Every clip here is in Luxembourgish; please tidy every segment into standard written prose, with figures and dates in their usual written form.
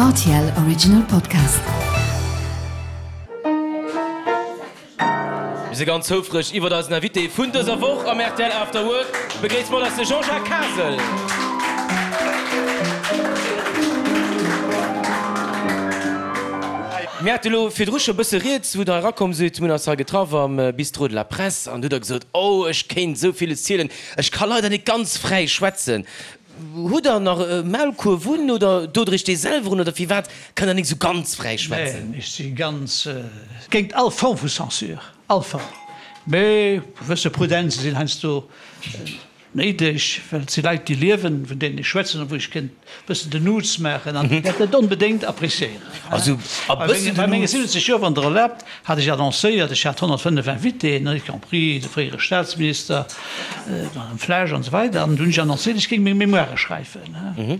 Rtl Original Podcast. Mir si ganz houfreg iwwert eisen Invité vun dëser Woch am rtl After Work. Begréisst mat eis de Jean-Jacques Kasel. Mir hate lo virdru scho bësse rieds, wou der erakomm sidd. Mir hunn eis hei getraff am Bistrot de la Presse an du hutt der gesot, Oh, ech kéint esou villes zielen, ech ka leider net ganz fräi schwätzen. Hutt der nach e Maulkuerf un oder dot der iech dee selwer un oder firwat kënnt der nik esou ganz fräi schwätzen? Neen, ech si ganz géint all Form vu Censure, all Form. Mee gewësse Prudenze sinn heiansdo néideg, well et si Leit, déi liewen, vun deenen ech schwätzen a wou ech kéint e bëssen den Nuts maachen an déi dat net onbedéngt appréciéieren. Also e bëssen Bei den menge Nuts. 70 Joer, wann Der erlaabt, hat ech annoncéiert, ech hat 105 Invitéen, y compris de fréiere Staatsminister, D'Madame Flesch an esou weider. An du hunn ech annoncéiert, ech géing meng Mémoire schreiwen.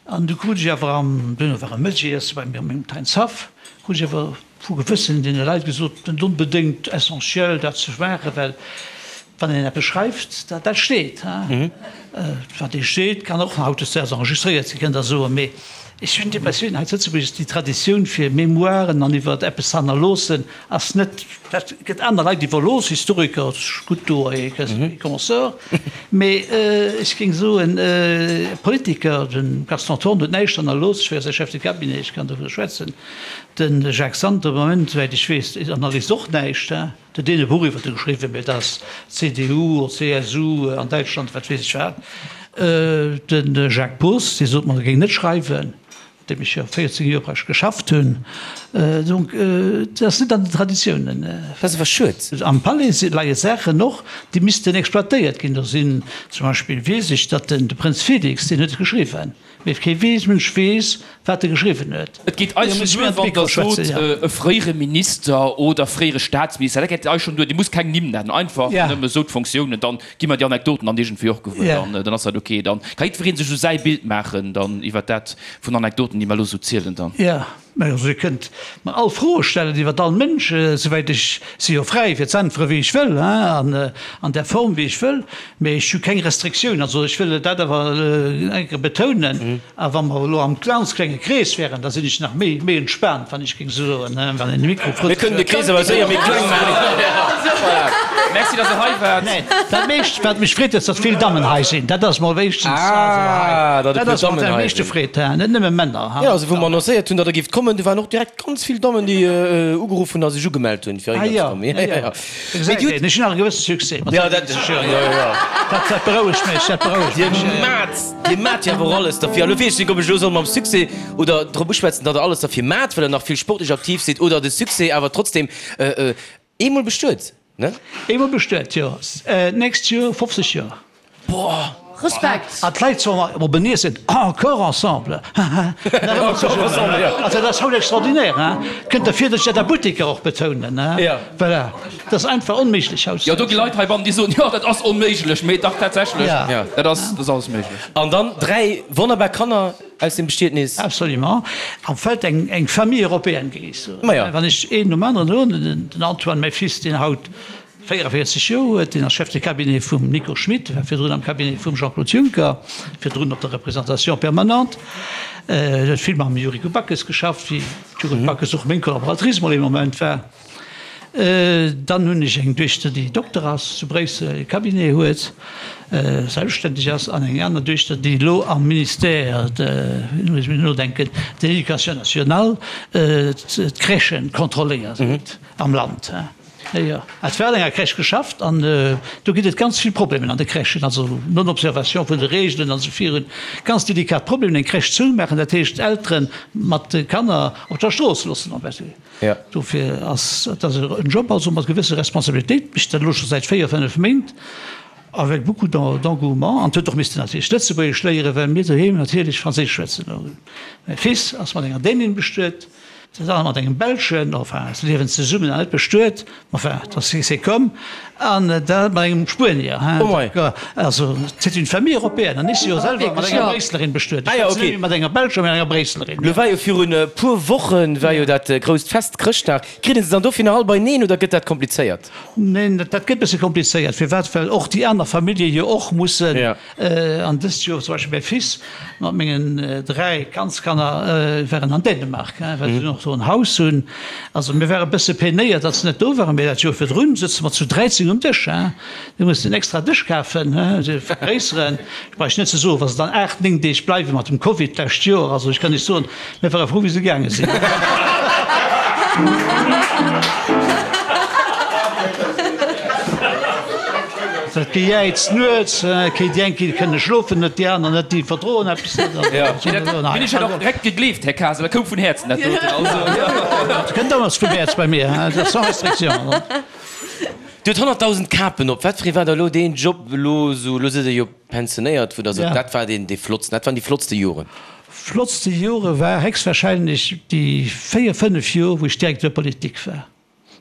An du krut ech awer am, duerno war e Mëttegiesse bei mir am mengem Teins Haff, krut ech awer vu gewëssen deene Leit gesot, net onbedéngt essentiel dat ze maachen, well wann een eppes schreift, dat dat steet. Wat ee steet, kann och hautdesdaags enregistréiert sinn, kënnt Der soen. Mee ech hunn d'Impressioun, hei zu Lëtzebuerg ass déi Traditioun fir Mémoiren an iwwer eppes ze hannerloossen, Ass net, dat gëtt aner Leit iwwerlooss, Historiker, gutt do et consorts, mee ech géing soen, Politiker, de Gaston Thorn huet näischt hannerlooss, ech war jo säi Chef de cabinet, ech kann dovunner schwätzen, de Jacques Santer am Moment, souwäit ech weess, hannerléisst och näischt, huet deen e Buch iwwert e geschriwwen, mee dat ass CDU oder CSU an Däitschland, wat weess ech wat. De Jacques Poos, dee sot mer, e géing net schreiwen. Deem ech jo 14 Joer praktesch geschafft hunn. Donc, dat ass net an den Traditiounen. Dat ass awer schued. Am Palais leie Saachen och, déi missten exploitéiert ginn. Do sinn zum Beispill, weess ech, datt den de Prënz Felix, deen huet et geschriwwen, mee kee weess, Mënsch weess, wat e geschriwwen huet. Et geet eis schonn duer, wann Der sot, e fréiere Minister oder fréiere Staatsminister, dat geet eis schonn duer. Dir musst keng Nimm nennen, einfach nëmme sou d'Fonctiounen, dann Gi mer déi Anekdoten dann iergendwéi och gewuer, dann, dann ass dat ok. Dann ka jiddweree sech esou säi Bild maachen dann iwwer dat vun Anekdoten, déi mer elo esou zielen dann. Jo, mä also Dir kënnt mer all Froe stellen iwwer all Mënsch, souwäit ech si jo fräi fir z'äntwere wéi ech wëll, hein, an an där Form wéi ech wëll, mä ech hu keng Restriktioun. Also ech wëll dat awer eng Kéier betounen. A wa mer elo am ganz klenge Krees wären, da sinn ech nach méi, méi entspaant, wann ech géing esou soen, wann een de Mikro Mir kënnen de Krees awer séier méi kleng maachen. Voilà. Merci, dass Der hei waart. Neen, dat meescht, wat mech freet, ass, datt vill Dammen hei sinn. Dat ass mol wéinstens, also hei, Ah, datt e dat puer ass wat Dammen am hei meeschte sinn. freet, net nëmme Männer. Jo, also wou mer annoncéiert hunn, datt Der géift kommen, do waren och direkt ganz vill Dammen, déi ugeruff hunn a sech ugemellt hunn, fir Ah heihinner ze jo, kommen. jo, jo. Mee Dir hutt. Ech hunn nach e gewësse Succès mat 70 Joer. Dat, dat berouegt mech, dat berouegt Dir mech. maat. Dir maat jo awer och alles derfir. Elo weess ech net, ob ech elo soll mam Succès oder drop uschwätzen, datt der alles derfir maat, well der nach vill sportlech aktiv sidd, oder de Succès awer trotzdem eemol bestuet, ne? Eemol bestuet, jo. D'nächst Joer 50 Joer. Boah! Respekt! An d'Leit soen mer op en Iesse, Encore ensemble! Haha! Nach ëmmer zesummen. Also dat ass haut extraordinaire, hein? Kënnt der vir, datt ech dat a Butteker och betounen, hein? Voilà. Dat ass einfach onméiglech haut. Jo, do gi Leit heibannen, déi soen, jo, dat ass onméiglech, mee dach tatsächlech, dat ass, dat ass alles méiglech. An dann 3 wonnerbar Kanner aus dem Bestietnis. Absolument. Am Feld eng, eng Famille européenne, géing ech soen. Ma jo. Wann ech een nom aneren huelen, den Antoine, mäi Fils, deen haut 44 Joer huet, deen ass Chef de cabinet vum Nico Schmit, war virdrun am Cabinet vum Jean-Claude Juncker, virdrun op der Représentation permanente, huet vill mam Yuriko Backes geschafft, wéi d'Yuriko Backes och meng Collaboratrice mol ee Moment war. Dann hunn ech eng Duechter, déi Dokter ass, zu Bréissel e Cabinet huet, selbstständeg ass, an eng aner Duechter, déi elo am Ministère de, elo muss ech mol nodenken, de l'Éducation nationale d'Crèchen kontrolléiert am Land. Jo, et war an enger Crèche geschafft an do ginn et ganz vill Problemen an de Crèchen, also Non-Observation vun de Reegelen an esou virun. Ganz delikat Problemen. Eng Crèche zoumaachen, dat heescht Eltere mat de Kanner op der Strooss loossen. Dofir ass et ass en Job also mat gewësse Responsabilitéit, mécht dat elo scho säit 4, 5 Méint avec beaucoup d'engouement an huet och missten natierlech Lëtzebuergesch léieren, well mir doheem natierlech Franséisch schwätzen. Mäi Fils ass mat enger Dänin bestuet. Dat aner mat engem Belschen, enfin, se liewen zesummen an net bestuet, enfin, dat c'est comme, an dat mat engem Spuenier, hein. Oh mei. Also, c'est une famille européenne. An ech si jo selwer mat enger Bréisselerin bestuet. Ah jo, ok. Ech schwätzen net méi mat enger Belscher, mee mat enger Bréisselerin. Lo war jo virun e puer Wochen war jo dat grousst Fest, Chrëschtdag. Kritt een se dann dofir nach all beineen oder gëtt dat komplizéiert? Neen, dat gëtt e bësse komplizéiert. Firwat? Well och déi aner Famillje jo och mussen. An dëst Joer zum Beispill mäi Fils mat mengen 3 Kandskanner waren an Dänemark, well se och do en Haus hunn. Also mir ware bësse peinéiert, datt se net do waren, mee dat Joer virdrun sëtze mer zu 13 um Dësch. Mir mussen en extra Dësch kafen, se vergréisseren. Ech brauch net ze soen, wa se dann 8, 9 Deeg bleiwe mat dem Covid d'lescht Joer, also ech kann Iech soen, Mir ware frou wéi se gaange sinn. Dat Gejäiz nuets, kéint déi eng kéint kënne schlofen net, déi aner net, déi verdroen eppes net. Dat hunn ech jo och direkt gegleeft, Här Kasel, dat koum vun Häerzen dat doten. Also jo. Dat kënnt alles vum Häerz bei mir, dat ass sans restriction. Dir hutt 100.000 Kapen op. Wat fir ee war da elo deen Job elo esou, elo sidd Der jo pensionéiert, wou Der sot, dat war deen dee flottsten, dat waren déi flottste Joren? Flottste Jore war héchstwahrscheinlech déi 4, 5 Jor wou ech Directeur politique war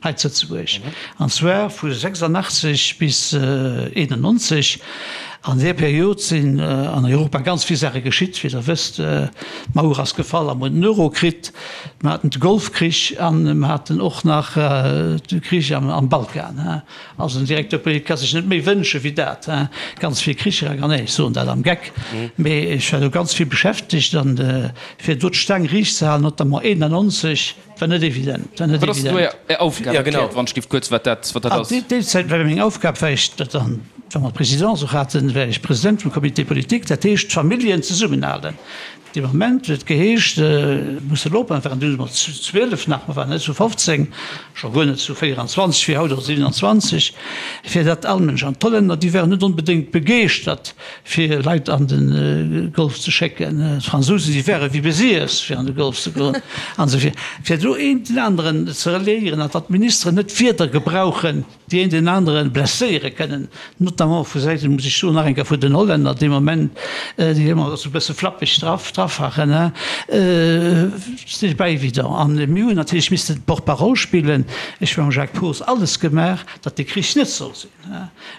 hei zu Lëtzebuerg, an zwar vu 86 bis 91. An där Period sinn an Europa ganz vill Saache geschitt, wéi Der wësst, d'Mauer ass gefall a mer hunn den Euro kritt, mer haten de Golfkrich an mer haten och nach de Krich am Balkan. Also en Directeur politique ka sech net méi wënsche wéi dat, hein. Ganz vill Kricher a nee, ech soen dat am Geck, mee ech war do ganz vill beschäftegt an fir do d'Staang riicht ze halen, notamment 91, war net evident, war net Wat ass do evident. Är Aufgab? Ja, genau. Erkläert wann ech giff kuerz, wat dat, wat dat An ass. déi déi Zäit war meng Aufgab, war ech dat dann, wa mer d'Présidence och haten, war ech President vum Comité politique, dat heescht d'Familljen zesummenhalen. Dee Moment huet et geheescht, musse elo oppassen, waren dunn emol zu 12 nach, mer waren net zu 15, scho guer net zu 24 wéi haut oder 27, fir datt all Mënsch, an d'Hollänner, déi waren net onbedéngt begeeschtert fir Leit an de Golf ze schécken, d'Fransousen, déi ware wéi besiess fir an de Golf ze goen an esou vir, fir do een den aneren ze reliéieren an datt d'Ministeren net Wierder gebrauchen, déi een deen anere blesséiere kënnen, notamment vu Säiten, muss ech soen, nach eng Kéier vun den Hollänner dee Moment, déi ëmmer esou e bësse flappeg draf draffachen, c'est pas évident. An mir hunn natierlech missten d'Porte-parole spillen. Ech hu mam Jacques Poos alles gemaach, datt dee Krich net soll sinn.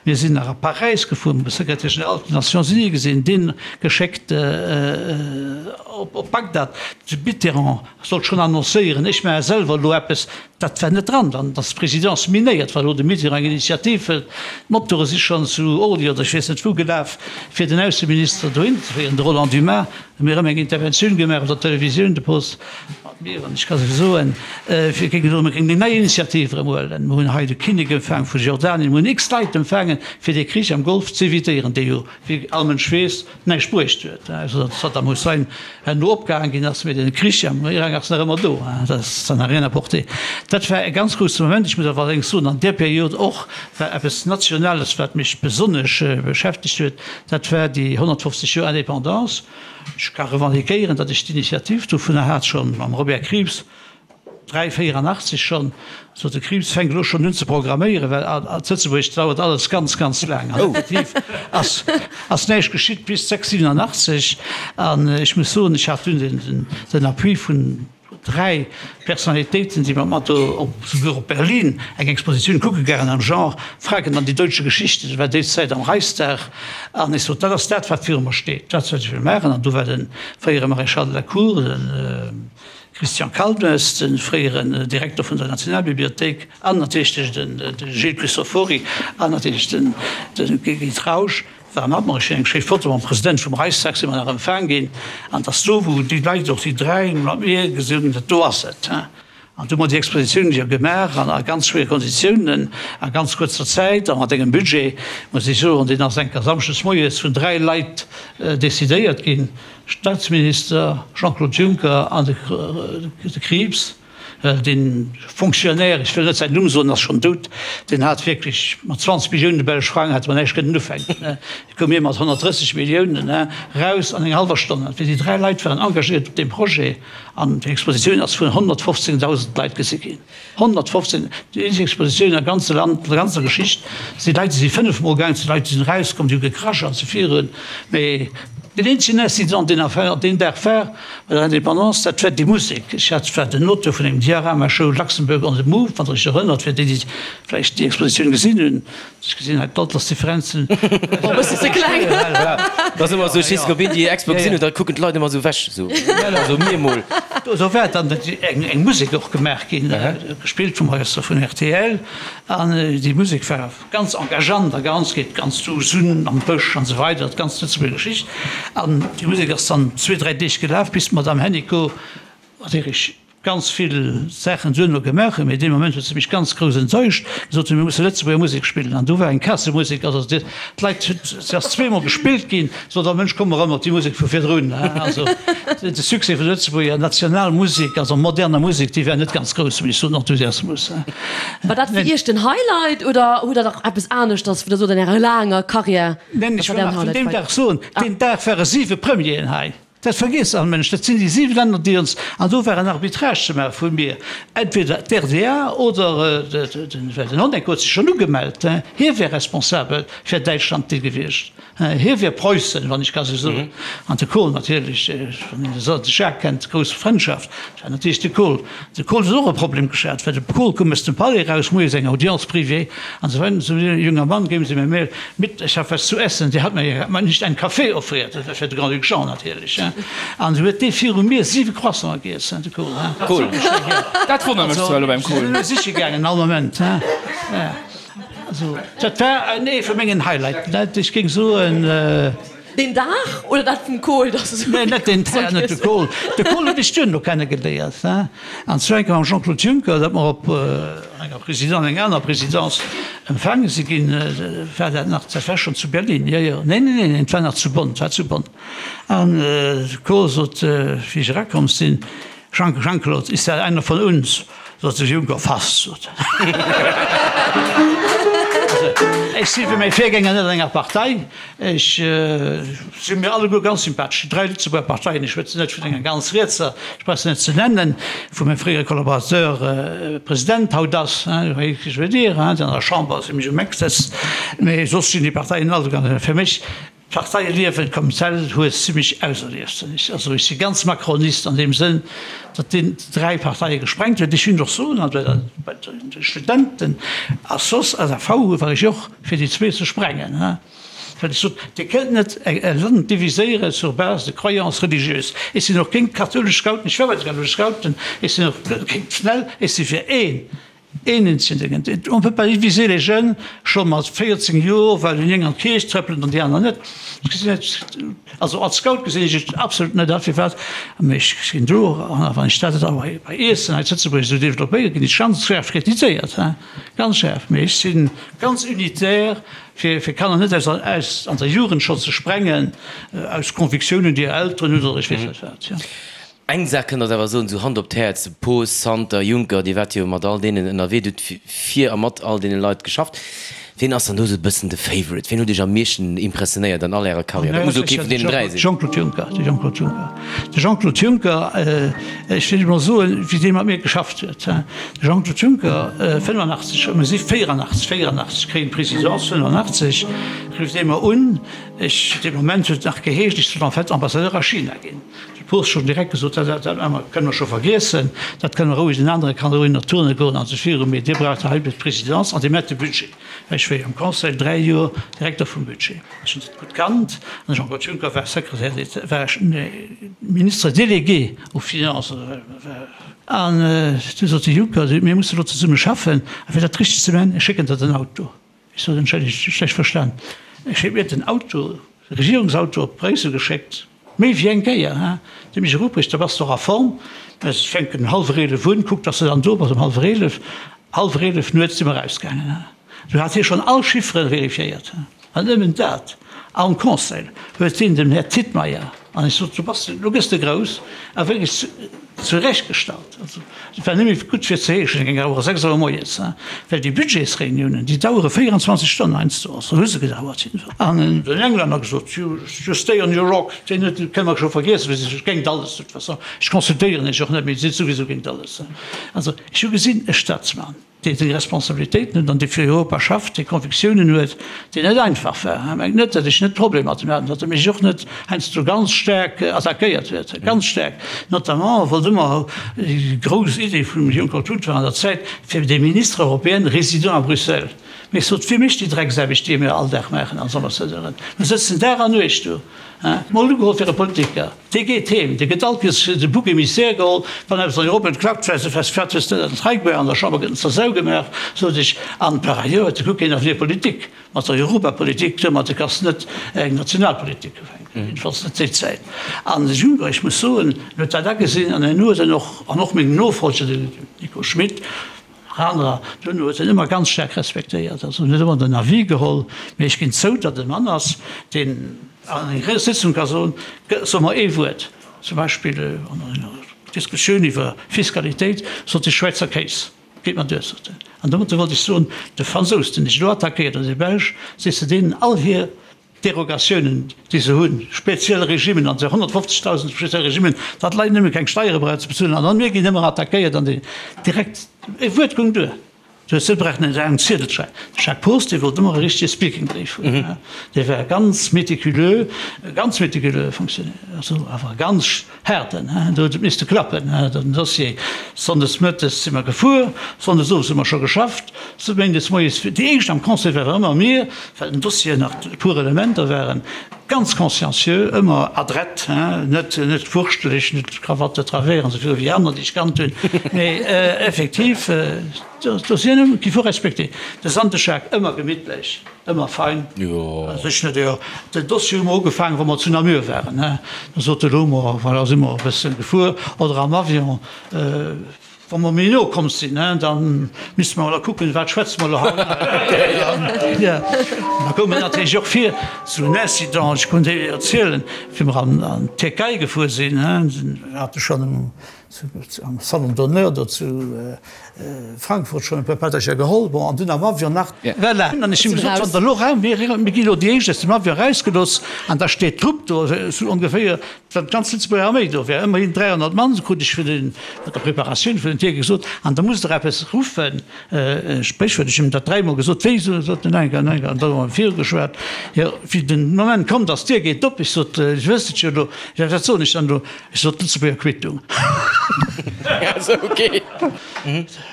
Mir sinn nach a Paräis gefuer, hu de Secrétaire général vun den Nations Unies gesinn, deen geschéckt op Bagdad, de Mitterrand sollt schonn annoncéieren, ech maache selwer elo eppes, Dat war net dran, dann ass d'Présidence minéiert, wa elo de Mitterrand eng Initiativ hëlt. D'Motore si schonn zu Orly oder ech weess net wou gelaf, fir den Ausseminister dohin ze féieren, de Roland Dumas. Hu mir erëm eng Interventioun gemaach op der Televisioun, de Post mat mir, an ech ka se soen, fir géingen soen, mir géingen eng nei Initiativ erëm huelen. Mir hunn hei de Kinnek empfaang vu Jordanien, mir hunn x Leit empfaangen, fir dee Krich am Golf z'évitéieren, dee jo, wéi all Mënsch weess, näischt bruecht huet, ausser datt Saddam Hussein herno opgehaang ginn ass, mee den Krich am Irak ass nach ëmmer do, dat ça n'a rien apporté. Dat war e ganz grousse Moment. Ech muss awer allerdéngs soen, an där Period och war eppes Nationales, wat mech besonnesch beschäftegt huet, dat war déi 150 Joer Indépendance. Ech ka revendiquéieren, datt ech d'Initiativ dovunner hat, scho mam Robert Krieps, 3, 84 schonn, sot de Krieps, fänk elo schonn un ze programméieren, well a Lëtzebuerg dauert alles ganz, ganz laang. An effektiv ass, ass näischt geschitt bis 6, 87. An ech muss soen, ech hat dunn den, den Appui vun dräi Personnalitéiten, déi mat mer do op, souguer op Berlin eng Expositioun kucke gaangen am Genre Fragen an die deutsche Geschichte, dat war déi Zäit am Reichstag. An ech sot, dat ass dat, wat viru mer steet, dat wat ech wëll maachen. An do war de fréiere Maréchal de la Cour, den, Christian Kalmes, de fréieren Direkter vun der Nationalbibliothéik, an natierlech de Gilles Cristofori an natierlech de Guy Trausch ware mat mer. Ech hunn eng schéi Foto mam President vum Reichstag, si mer nach empfaang ginn. An et ass do, wou déi Leit, och déi dräi, mat mir gesot hunn, dat do ass et. An du hu mer déi Expositioun jo gemaach an a ganz schwéiere Konditiounen, a ganz kuerzer Zäit a mat engem Budget, muss ech soen, deen ass enker samschdes moies vun dräi Leit decidéiert ginn. Staatsminister Jean-Claude Juncker an de Krieps, well dee Fonctionnaire, ech wëll net säin Numm soen, ass schonn dout, deen hat wierklech mat 20 Millioune belsch Frang hätte mer näischt kënnen ufänken. Du koume mir mat 130 Milliounen raus an enger hallwer Stonn. An déi dräi Leit waren engagéiert op deem Projet an déi Expositioun ass vun 115.000 Leit gesi ginn. 115, déi eenzeg Expositioun am ganze Land, an der ganzer Geschicht. Et si Leit, déi si fënnefmol gaangen, et si Leit, déi sinn erauskomm, déi hu gekrasch an sou virun. Mee. Deen eenzegen Incident, deen nach deen Dag war bei der Indépendance, dat war déi Musek. Ech hat, war den Auteur vun engem Diorama-Show Luxembourg on the Move, wann Der Iech erënnert, fir déi, déi vläicht déi Expositioun gesinn hunn. Ech gesinn hei d'Altersdifferenzen. Oh, e bëssen ze kleng. Dat ass ëmmer esou, ech weess net, ob een déi Expo gesinn huet, da kucken d'Leit ëmmer esou ewech, esou, also mir emol. Do war dann eng Musek och gemaach ginn, gespillt vum Orchester vun rtl, an déi Musek war. Ganz engageant a ganz, geet ganz du Sunn am Bësch an esou weider, d'ganz Lëtzebuerger Geschicht. An déi Musek ass dann zwee, dräi Deeg gelaf, bis d'Madame Hennicot, mat där ech ganz vill Saachen duerno gemaach hunn, mee dee Moment huet se mech ganz grouss enttäuscht, gesot hunn, mir musse Lëtzebuerger Musek spillen. An do war eng Kassemusek, also d'Leit, se ass zweemol gespillt ginn, sot all Mënsch, komm erëm op déi Musek vu virdrun. Also de Succès vun der Lëtzebuerger Nationalmusek, also moderner Musek, dee war net ganz grouss, muss ech soen, Enthusiasmus. War dat fir Iech den Highlight oder hutt der nach eppes aneschters, wou der sot an Ärer laanger Karriär, Neen, ech dat war wëll däin nach vun Highlight deem bei. Dag soen, deen Dag ware siwe Premieren hei. Dat vergiesst all Mënsch. Dat sinn déi siwe Länner, déi ons, an do war en Arbitrage ze maache vu mir, entweder d'RDA oder den, well den Honecker huet sech schonn ugemellt, hie wär responsabel fir Däitschland dee gewiescht. Hie wier Preussen, wann ech ka sou soen. An de Kohl natierlech, wann een de Jacques kennt, grouss Frëndschaft, dat war natierlech de Kohl. De Kohl huet och e Problem geschat, well de Kohl koum aus dem Palais eraus, moies eng Audience privée an esou weider, esou e junger Mann, geben Sie mir mehr mit, ich hab was zu essen. Der hat mir ja nicht einen Kaffee offriert, dat war fir de Grand-Duc Jean natierlech. An esou huet dee viru mir siwe Croissanten giess, de Kohl. Kohl, dat wonnert mech zwar elo beim Kohl. Ech sinn elo siche gaangen all Moment. Also, dat war ee vu mengen Highlighten. Dat, ech géing soen. Deen Dag oder dat vum Kohl, dass esou. Nee, net deen Dag, net de Kohl. De Kohl hunn ech duerno kenne geléiert, hein. An zwar eng Kéier mam Jean-Claude Juncker, dat mer op enger Présidence, enger aner Présidence empfaange si ginn. War dat nach, dat war schonn zu Berlin, jo, jo. Nee, nee, nee, et war nach zu Bonn, et war zu Bonn. An de Kohl sot, wéi ech erakomm sinn, Jean, Jean-Claude, ist da einer von uns? Sot de Juncker, fast, sot en. Also, ech si wéi mäi Virgänger net an enger Partei. Ech si mir alleguer ganz sympathesch, déi dräi Lëtzebuerger Parteien. Ech schwätzen net vun enger ganz rietser, ech brauch se net ze nennen, wou mäi fréiere Collaborateur President haut ass, hein, vous voyez ce que je veux dire, hein, déi an der Chamber si mech um Eck sëtzt. Mee soss sinn déi Parteien alleguer fir mech D'Parteieliewen comme tel huet zimmlech auserlieft. Also ech si ganz Macronist an deem Sënn, datt deen dräi Parteie gesprengt huet. Ech hunn och soen, an bei de Studenten a soss SAV war ech och fir déi zwee ze sprengen, well ech sot, Dir kënnt net e Land diviséiere sur base de croyances religieuses. Ech sinn och géint d'kathoulesch Scouten, ech war bei de kathoulesch Scouten, ech sinn och géint d'FNEL, ech si fir een Een Incident, On peut pas diviser les jeunes scho mat 14 Joer, well déi eng an d'Kierch trëppelen an déi aner net. Ech gesinn et, also als Scout gesinn ech et absolut net a firwat, mee ech ginn do, a wann ech dat da bei Iessen hei zu Lëtzebuerg esou developpéieren, ginn ech ganz schaarf kritiséiert, hein, ganz schaarf. Mee ech si ganz unitaire, fir fir Kanner net aus aus an der Jugend scho ze sprengen, aus Convictiounen, déi hir Elteren hunn oder ech weess net wat, jo. Eng Saach kënnt Der awer soen, esou Hand op d'Häerz, Poos, Santer, Juncker, Dir waart jo mat all deenen ënnerwee, Dir hutt fir a mat all deene Leit geschafft. Wien ass dann do esou e bëssen de Favorite? Wien huet Iech am meeschten impressionéiert an all Ärer Karriär? Dat muss elo kee vun deenen dräi sinn. Jean-Claude Juncker, de Jean-Claude Juncker. De Jean-Claude Juncker, ech wëll emol soen, wéi dee mat mir geschafft huet. De Jean-Claude Juncker, 85, mir si 84, 84 kréien d'Presidence, 85 rifft ee mer un, ech, dee Moment huet et nach geheescht, ech soll en fait Ambassadeur a China ginn. De Post schonn direkt gesot, dat dat kënne mer scho vergiessen, dat kënne mer roueg, den anere kann roueg nach turne goen an sech viru, mee Dir braucht hei d'Presidence an Dir maacht de Budget. Well ech war jo am Conseil dräi Joer Direkter vum Budget, ech hunn dat gutt kannt an de Jean-Claude Juncker war Secrétaire d'État, war Ministre délégué aux Finances. An du sot de Juncker, mir musse elo zesumme schaffen a fir dat richteg ze maachen, ech schécken der den Auto. Ech sot, Entschëllegt, schlecht verstan, ech huet mir den Auto, de Regierungsauto op Bréissel geschéckt, méi wéi eng Kéier, hein, de Michel Ruprecht, da bass de och a Form, mä ech fänken um hallwer 11 un, kuck, dass de dann do bass um hallwer 11, hallwer 11 nuets si mer erausgaangen, hein. Do hat hie schonn all Chiffere vérifiéiert, hein, an nëmmen dat, am Conseil huet hien dem Här Tietmeyer, An ech sot, Du bass, elo gëss de grouss a wierklech zurechtgestallt. Also, et war nëmme gutt fir ze heeschen, et géing awer 6 Auer moies, well déi Budgetsreuniounen, déi dauere 24 Stonnen heiansdo, also hu se gedauert jiddefalls. An den Englänner gesot, You just stay on your rock, deen huet, kënne mer scho vergiessen, well si si géint alles de toute façon. Ech consultéieren iech och net méi, Dir sidd souwisou géint alles. Also, ech hu gesinn, e Staatsmann. Dee seng Responsabilitéiten huet an dee fir Europa schafft, dee Convictiounen huet, deen net einfach war. Mengt net, datt ech net Problemer mat him hat, datt e mech och net heiansdo ganz staark attackéiert huet, ganz staark. Notamment wollt ëmmer déi grouss Idee vum Juncker Tut war an der Zäit, fir des ministres européens résidant à Bruxelles. Mee ech sot, Wie mécht déi Drecksaarbecht, déi mir all Dag maachen als Ambassadeuren? Mir sëtzen Dag an Nuecht do. Mol ugeholl fir e Politiker. Dee geet heem, dee gëtt all Kees de Bouc émissaire geholl, wann eppes an Europa net klappt, well se fest fäert hues net an d'Rei an der Chamber gëtt en zur Sau gemaach, sot ech. An par ailleurs huet de Kuck een Avenir politique mat der Europapolitik, domat kanns de net eng Nationalpolitik ufänken, jiddefalls net déi Zäit. An de Juncker, ech muss soen, en huet dat agesinn an en huet en och, an och meng Nofolger, den Nico Schmit, Anerer, dunn huet en ëmmer ganz staark respektéiert, also en huet ëmmer den Avis geholl, mee ech ginn zou, datt e Mann ass, deen an enger Sëtzung ka soen, so mer ee Wuert, zum Beispill an enger Diskussioun iwwer Fiskalitéit, sot de Schwäizer Kéis, geet mer duer, sot en. An domatter wollt ech soen, de Fransous, deen dech elo attackéiert, oder de Belsch, sees de deenen all hir Derogatiounen, déi se hunn, speziell Regimmen, an 150.000 speziell Regimmen, datt d'Leit nëmme keng Steiere brauchen ze bezuelen, an dann mir ginn ëmmer attackéiert an déi direkt, e Wuert goung duer, du hues net brauchen en laangen Ziedel ze schreiwen. De Jacques Poos, dee wollt ëmmer e richtege Speaking-Bréif hunn, dee war ganz méticuleux, e ganz méticuleux Fonctionnaire, also awer e ganz haarden, do huet et misste klappen, den Dossier. Sonndes mëttes si mer gefuer, sonndes owes hu mer scho geschafft, méindes moies, déi éischt am Conseil ware ëmmer mir, well den Dossier nach e puer Elementer waren, ganz consciencieux, ëmmer adrett, net net wurschteleg, net Krawatte travers an esou viru wéi aner, déi ech kannt hunn, mee effektiv, d'Dossieren qu'il faut respecter. De Sandeschaak ëmmer gemittlech. Ëmmer fein. Also ech net, jo. Den Dossier hu mer ugefaangen, wou mer zu Namur waren, he. Da sot de Lomo, voilà, si mer e bësse gefuer, oder am Avion, wa mer méi no komm sinn, he, da misste mer elo kucken, wat schwätze mer elo haut. Jo, da koum et natierlech och vir, sou en Incident, ech konnt Iech erzielen, wéi mer an d'Tierkei gefuer sinn, he, hate schonn um Am Salon d'honneur do zu Frankfurt schonn e puer Pättercher geholl, bon, an dunn am Avion nach. Voilà. An ech hunn gesot, wann der elo raum, mir gi elo déi éischt aus dem Avion erausgelooss an da steet d'Trupp do, esou ongeféier, wann d'ganz Lëtzebuerger Arméi do wär, ëmmerhin 300 Mann, esou krut ech vun den, bei der Preparatioun vun den Tierke gesot, an da musst der eppes ruffen, e Spréchwuert, ech hunn him dat dräimol gesot, wéi, sot en, enker, enker, an da hu mer virugeschwat, jo, wéi den Moment komm, datt d'Dier geet op, ech sot, ech wësst et jo elo, jo, wat soen ech dann elo? Ech sot d'Lëtzebuerger Quittung.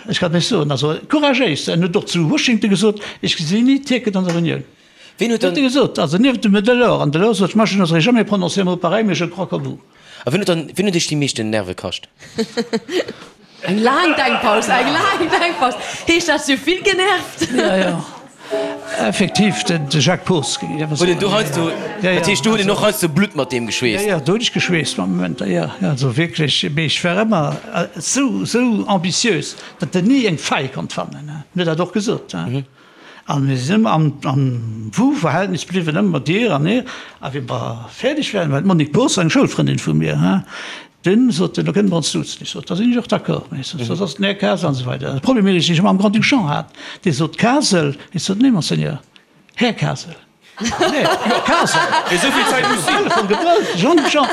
Ech kann lech soen, also couragéis, en huet och zu Washington gesot, ech gesinn ni d'Tierken an der Unioun. Ween huet dann. Huet e gesot, also nieft dem Delors, an Delors sot, moi je n'oserais jamais prononcer un mot pareil, mais je crois comme vous. A wien huet dann, wien huet iech déi meeschten Nerve kascht? Eng laang Denkpaus, eng laang Denkpaus. Heescht dat, si hu vill genervt? Jo, jo, effektiv, de Jacques Poos, géing ech awer soen. Huet en do heiansdo, dat heescht, do huet en och heiansdo Blutt mat deem geschweesst? Jo, jo, do hunn ech geschweesst mat Momenter, jo, jo, also wierklech. Mee ech war ëmmer esou, esou ambitiös, datt en ni eng Faille konnt fannen. En huet dat och gesot. A mir sinn ëmmer am, am Vous-Verhältnis bliwwen, ëmmer dir an hir. A wéi mer fäerdeg waren, war d'Monique Poos, eng Schoulfrëndin vu mir, dunn sot en, da kënne mer ons duzen. Ech sot, da sinn ech och d'accord. Ech sot, soss ass den Här Kasel an esou weider. De Problem, deen ech mam Grand-Duc Jean hat, dee sot Kasel, ech sot, nee, Monseigneur, Här Kasel. Nee, jo, Kasel. Mee esou vill Zäit muss sinn. Telefon gebrëllt, Jean-Duc Jean,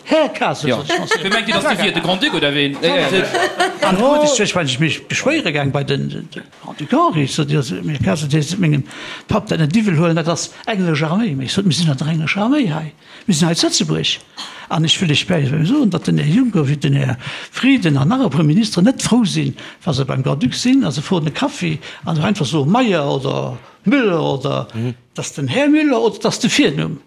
Här Kasel, sot ech, Monseigneur. Wee mengt Dir, datt Dir wier? De Grand-Duc oder ween? An du huet ech, well ech mech beschwéiere gaang bei den Grand-Duc Henri, ech sot, jo, mee Här Kasel, Dir sollt mengem Papp dat net iwwel huelen, dat ass englesch Arméi. Mee ech sot, mir sinn an der englescher Arméi hei. Mir sinn hei zu Lëtzebuerg an ech wëll lech bäi soen, datt den Här Juncker wéi den Här Frieden an nach e puer Ministeren net frou sinn, wa se beim Grand-Duc sinn a se froen e Kaffi an se einfach soe Meyer oder Müller oder et ass den Här Müller oder et ass de Virnumm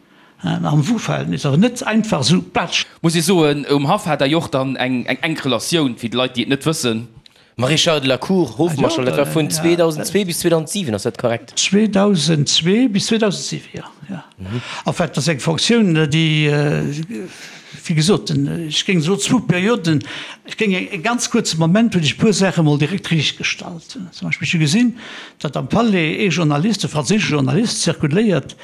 am Vous-Verhältnis, awer net einfach esou patsch. Muss ee soen, um Haff hat Der jo och dann eng enk Relatioun, fir déi Leit, déi et net wëssen. Maréchal de la Cour, Hofmarschall, dat war vun 2002 bis 2007, ass dat korrekt? 2002 bis 2007, jo, jo. En fait, dat ass eng Fonctioun, déi, wéi gesot, ech géing soen, zwou Perioden, ech géing e ganz kuerze Moment, hunn ech e puer Saache mol direkt riichtgestallt. Zum Beispill, ech hu gesinn, datt am Palais ee Journalist, e franséische Journalist, zirkuléiert,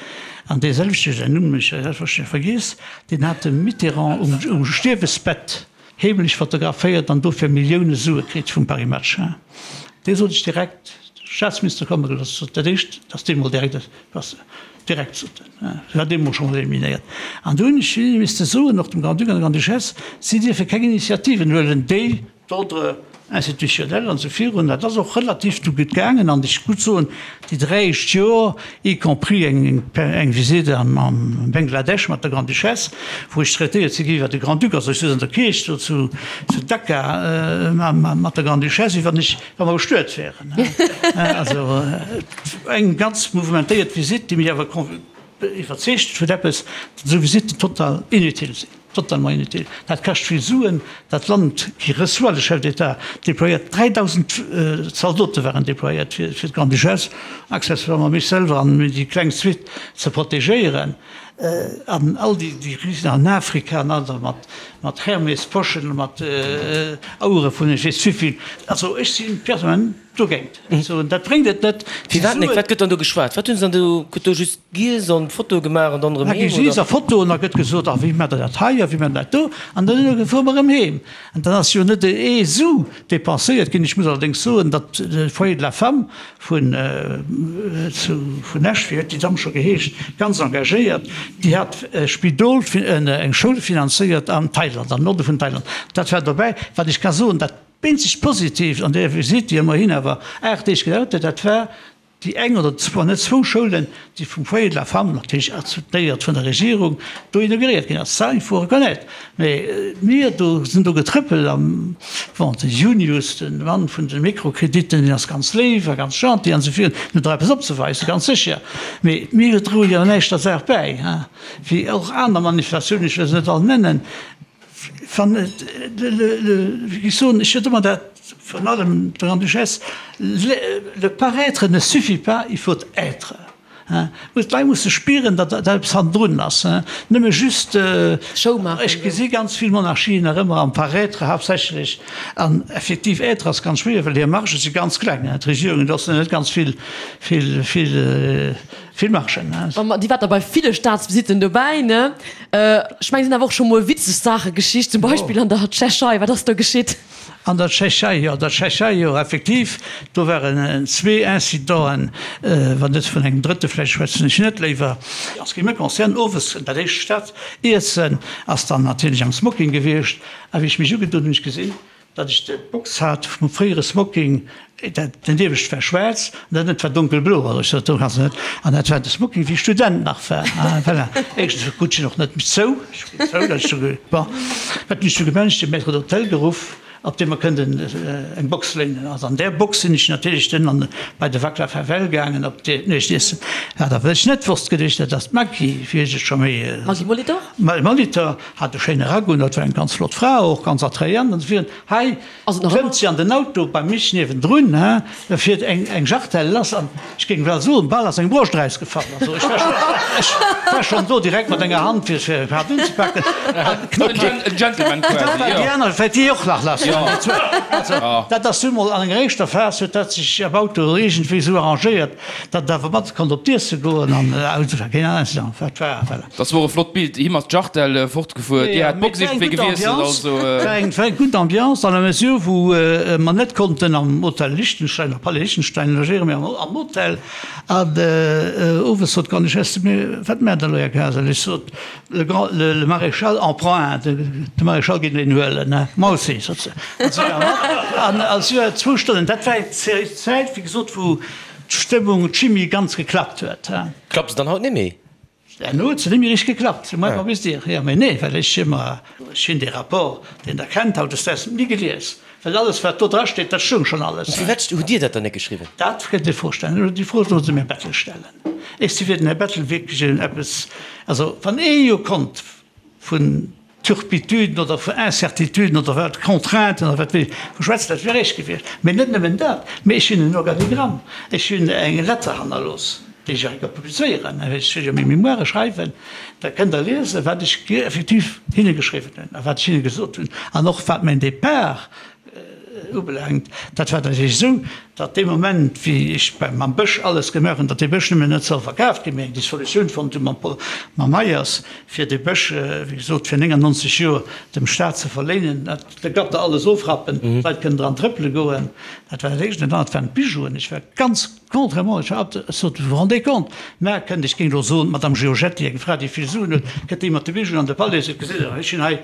an dee selwechte, säin Numm hunn ech selbstverständlech vergiess, deen hat de Mitterrand um Stierwesbett Heemlech fotograféiert an dofir Millioune Sue kritt vum Paris Match. Dee sot ech direkt, Staatsminister komme gelooss, sot dat éischt, datt dee mol direkt ass, direkt sot en, war dee mol schonn eliminéiert. An do hunn ech misste soen, och dem Grand-Duc an der Grande-Duchesse, si dierfe keng Initiativen huelen, déi d'Ordre. Institutionnel an esou virun. Dat ass och relativ du gutt gaangen an ech gutt soen, déi 3 éischt Joer, y compris eng eng Visite am am Bangladesch mat der Grande-Duchesse, wou ech traitéiert si gi wéi de Grand-Duc, also ech souz an der Kierch do zu zu Dhaka mat der Grande-Duchesse, wéi wann ech wa mer bestuet wären. Also eng ganz mouvementéiert Visite, déi mech awer iwwerzeegt huet eppes, datt esou Visitten total inutile sinn. Totalement inutile. Dat kascht vill Suen. Dat Land qui reçoit le chef d'État déployéiert 3.000 Zaldote waren déployéiert fir d'Grande-Duchesse, accessoirement mech selwer an déi kleng Suite ze protegéieren. An all déi Risen an Afrika an aner mat Hermes-Poschen, mat Auere vun ech weess wéivill. Also ech si personnellement. Dogéint. Ech soen, dat bréngt et net. Firwat net? Wat gëtt dann do geschwat? Wat hunn se dann do? Gëtt do just giess an Fotoe gemaach an dann erëm heem, oder? Da gi giess a Fotoen, da gëtt gesot, a wéi maacht der dat hei a wéi maacht der dat do? An dann fuere mer erëm heem. An dann ass jo net ee Su depenséiert ginn. Ech muss allerdéngs soen, datt de Foyer de la Femme vun zu vun Esch, wéi huet déi Damm scho geheescht, ganz engagéiert, déi hat e Spidol, eng Schoul finanzéiert an Thailand, am Norde vun Thailand. Dat war dobäi. Wat ech ka soen, dat Eenzegt Positiivt an där Visitt, déi ëmmerhin awer 8 Deeg gedauert huet, dat war déi eng oder wann net zwou Schoulen, déi vum Foyer de la Femme, natierlech soutenéiert vun der Regierung, do inauguréiert ginn ass. Ça, il faut reconnaître. Mä mir do sinn do getrëppelt an, bon, de Junius, de Mann vun de Mikrokrediten, deen ass ganz léif a ganz gentil an esou virun, deen huet och eppes opzeweisen, ganz sécher. Mee mir droe jo näischt der Saach bäi, wéi och aner Manifestatiounen, ech wëll se net all nennen. Wann et, wéi ech soen, ech huet ëmmer dat, virun allem d'Grande-Duchesse, le paraître ne suffit pas, il faut être. D'Leit musse spieren, datt da eppes hannendrun ass, nëmme just, Show maachen. Ech gesi ganz vill Monarchien nach ëmmer am Paraître haaptsächlech, an effektiv être ass ganz schwéier, well hir Margë si ganz kleng. D'Regierungen loossen net ganz vill, vill, vill. Vill Margen, ne? An Dir waart da bei ville Staatsvisitten dobäi, ne? Ech mengen, et sinn awer och scho mol witzeg Saache geschitt, zum Beispill an der Tschechei. Wat ass do geschitt? An der Tschechei, jo, an der Tschechei, jo, effektiv, do waren zwee Incidenten, wann net vun engem drëtte, vläicht schwätzen ech net léiwer. En ce qui me concerne, owes dat éischt Staatsiessen ass dann natierlech am Smoking gewiescht, a wéi ech mech ugedunn hunn, hu ech gesinn, Datt ech d'Box hat vum fréiere Smoking, dat den iewescht war schwaarz an dat ënnescht war donkelblo, also ech sot, do kanns de net, an dat war de Smoking wéi ech Student nach war, voilà. Éischtens krut ech en och net méi zou, ech ginn zou, datt ech do, bon, wat hunn ech du gemaach, ech hunn de Maître d'hôtel geruff, op deem mer kënnten eng Box léinen. Also an där Box sinn ech natierlech dunn an bei de Vaclav Havel gaangen op d'Nuechtiessen. Wat awer ech net wosst geduecht, dat ass d'Maggy, wéi ech et scho méi. Maggy Molitor? Molitor. Hat e schéine Rack un, dat war eng ganz flott Fra och, ganz attrayant an esou virun. Hei klëmmt si an den Auto bei mich niewendrun, he, da fiert eng eng Jartelle lass an ech géing well soen, bal ass eng Broscht erausgefall. Also ech war schon, ech war schon do direkt mat enger Hand fir fir hatt unzepaken an knappt En Gentleman quasi, jo. Déi aner wäert déi och nach lass. Also dat ass du mol an enger éischter Phas huet dat sech am Auto iergendwéi esou arrangéiert, datt et awer mat konnt op d'Iesse goen an also war keen Incident, wat war, voilà. Dat wor e flott Bild, him ass d'Jartelle fortgefuer, dir hat d'Box iergendwéi gewiesselt, also. War eng war eng gutt Ambiance dans la mesure wou mer net konnten am Hotel Liechtenstein, am Palais Liechtenstein logéieren, mee am Hotel. An owes sot d'Grande-Duchesse zu mir, Wat maacht der elo, Här Kasel? Ech sot, Le grand, le Maréchal en prend un, de Maréchal geet een huelen. Moi aussi, sot se. An si war mat. An si war zwou Stonnen, dat war eng Zäit, wéi gesot, wou d'Stëmmung, d'Chimie ganz geklappt huet. Klappt se dann haut net méi? Herno huet se net méi richteg geklappt, c'est moins qu'on puisse dire. Jo, mee nee, well ech ëmmer, ech hunn dee Rapport, deen Der kennt hautdesdaags, ni gelies, well alles, wat do drasteet, dat stoung schonn alles. Firwat hutt Dir dat dann net geschriwwen? Dat kënnt Dir Fro stellen. Déi Fro sollte Sie dem Här Bettel stellen. Ech si fir den Här Bettel wierklech en eppes, also wann ee jo konnt vun Turpituden oder vu Incertituden oder wat, Contrainten oder wat weess ech, vu schwätzen, dat wier eréischt gewiescht. Mee net nëmmen dat, mee ech hunn en Organigramm, ech hunn eng Letter hannerlooss, déi ech och publizéieren, ech wëll jo meng Mémoire schreiwen, da kënnt Der liesen, wat ech effektiv hinne geschriwwen hunn a wat ech hinne gesot hunn an och wat mäin Départ ubelaangt. Dat war natierlech esou, datt dee Moment, wéi ech beim mam Bësch alles gemaach hunn, datt dee Bësch nëmmen net soll verkaaft ginn, mir eng Dissolutioun fonnt hu mam Paul, mam Meyers, fir dee Bësch, wéi gesot, fir 99 Joer dem Staat ze verléinen, dat de Gatter alles ofrappen, d'Leit kënnen dran trëppele goen. Dat war dat Éischt. An dat anert waren d'Bijouen. Ech war ganz. Contrairement, ech hat, ech sot, vous vous rendez compte, mä kënnt, ech géing elo soen, d'Madame Giorgetti, eng Fra, déi vill Suen huet, kënnt déi mat de Bijouen an de Palais, seet, gesitt Der, ech hunn hei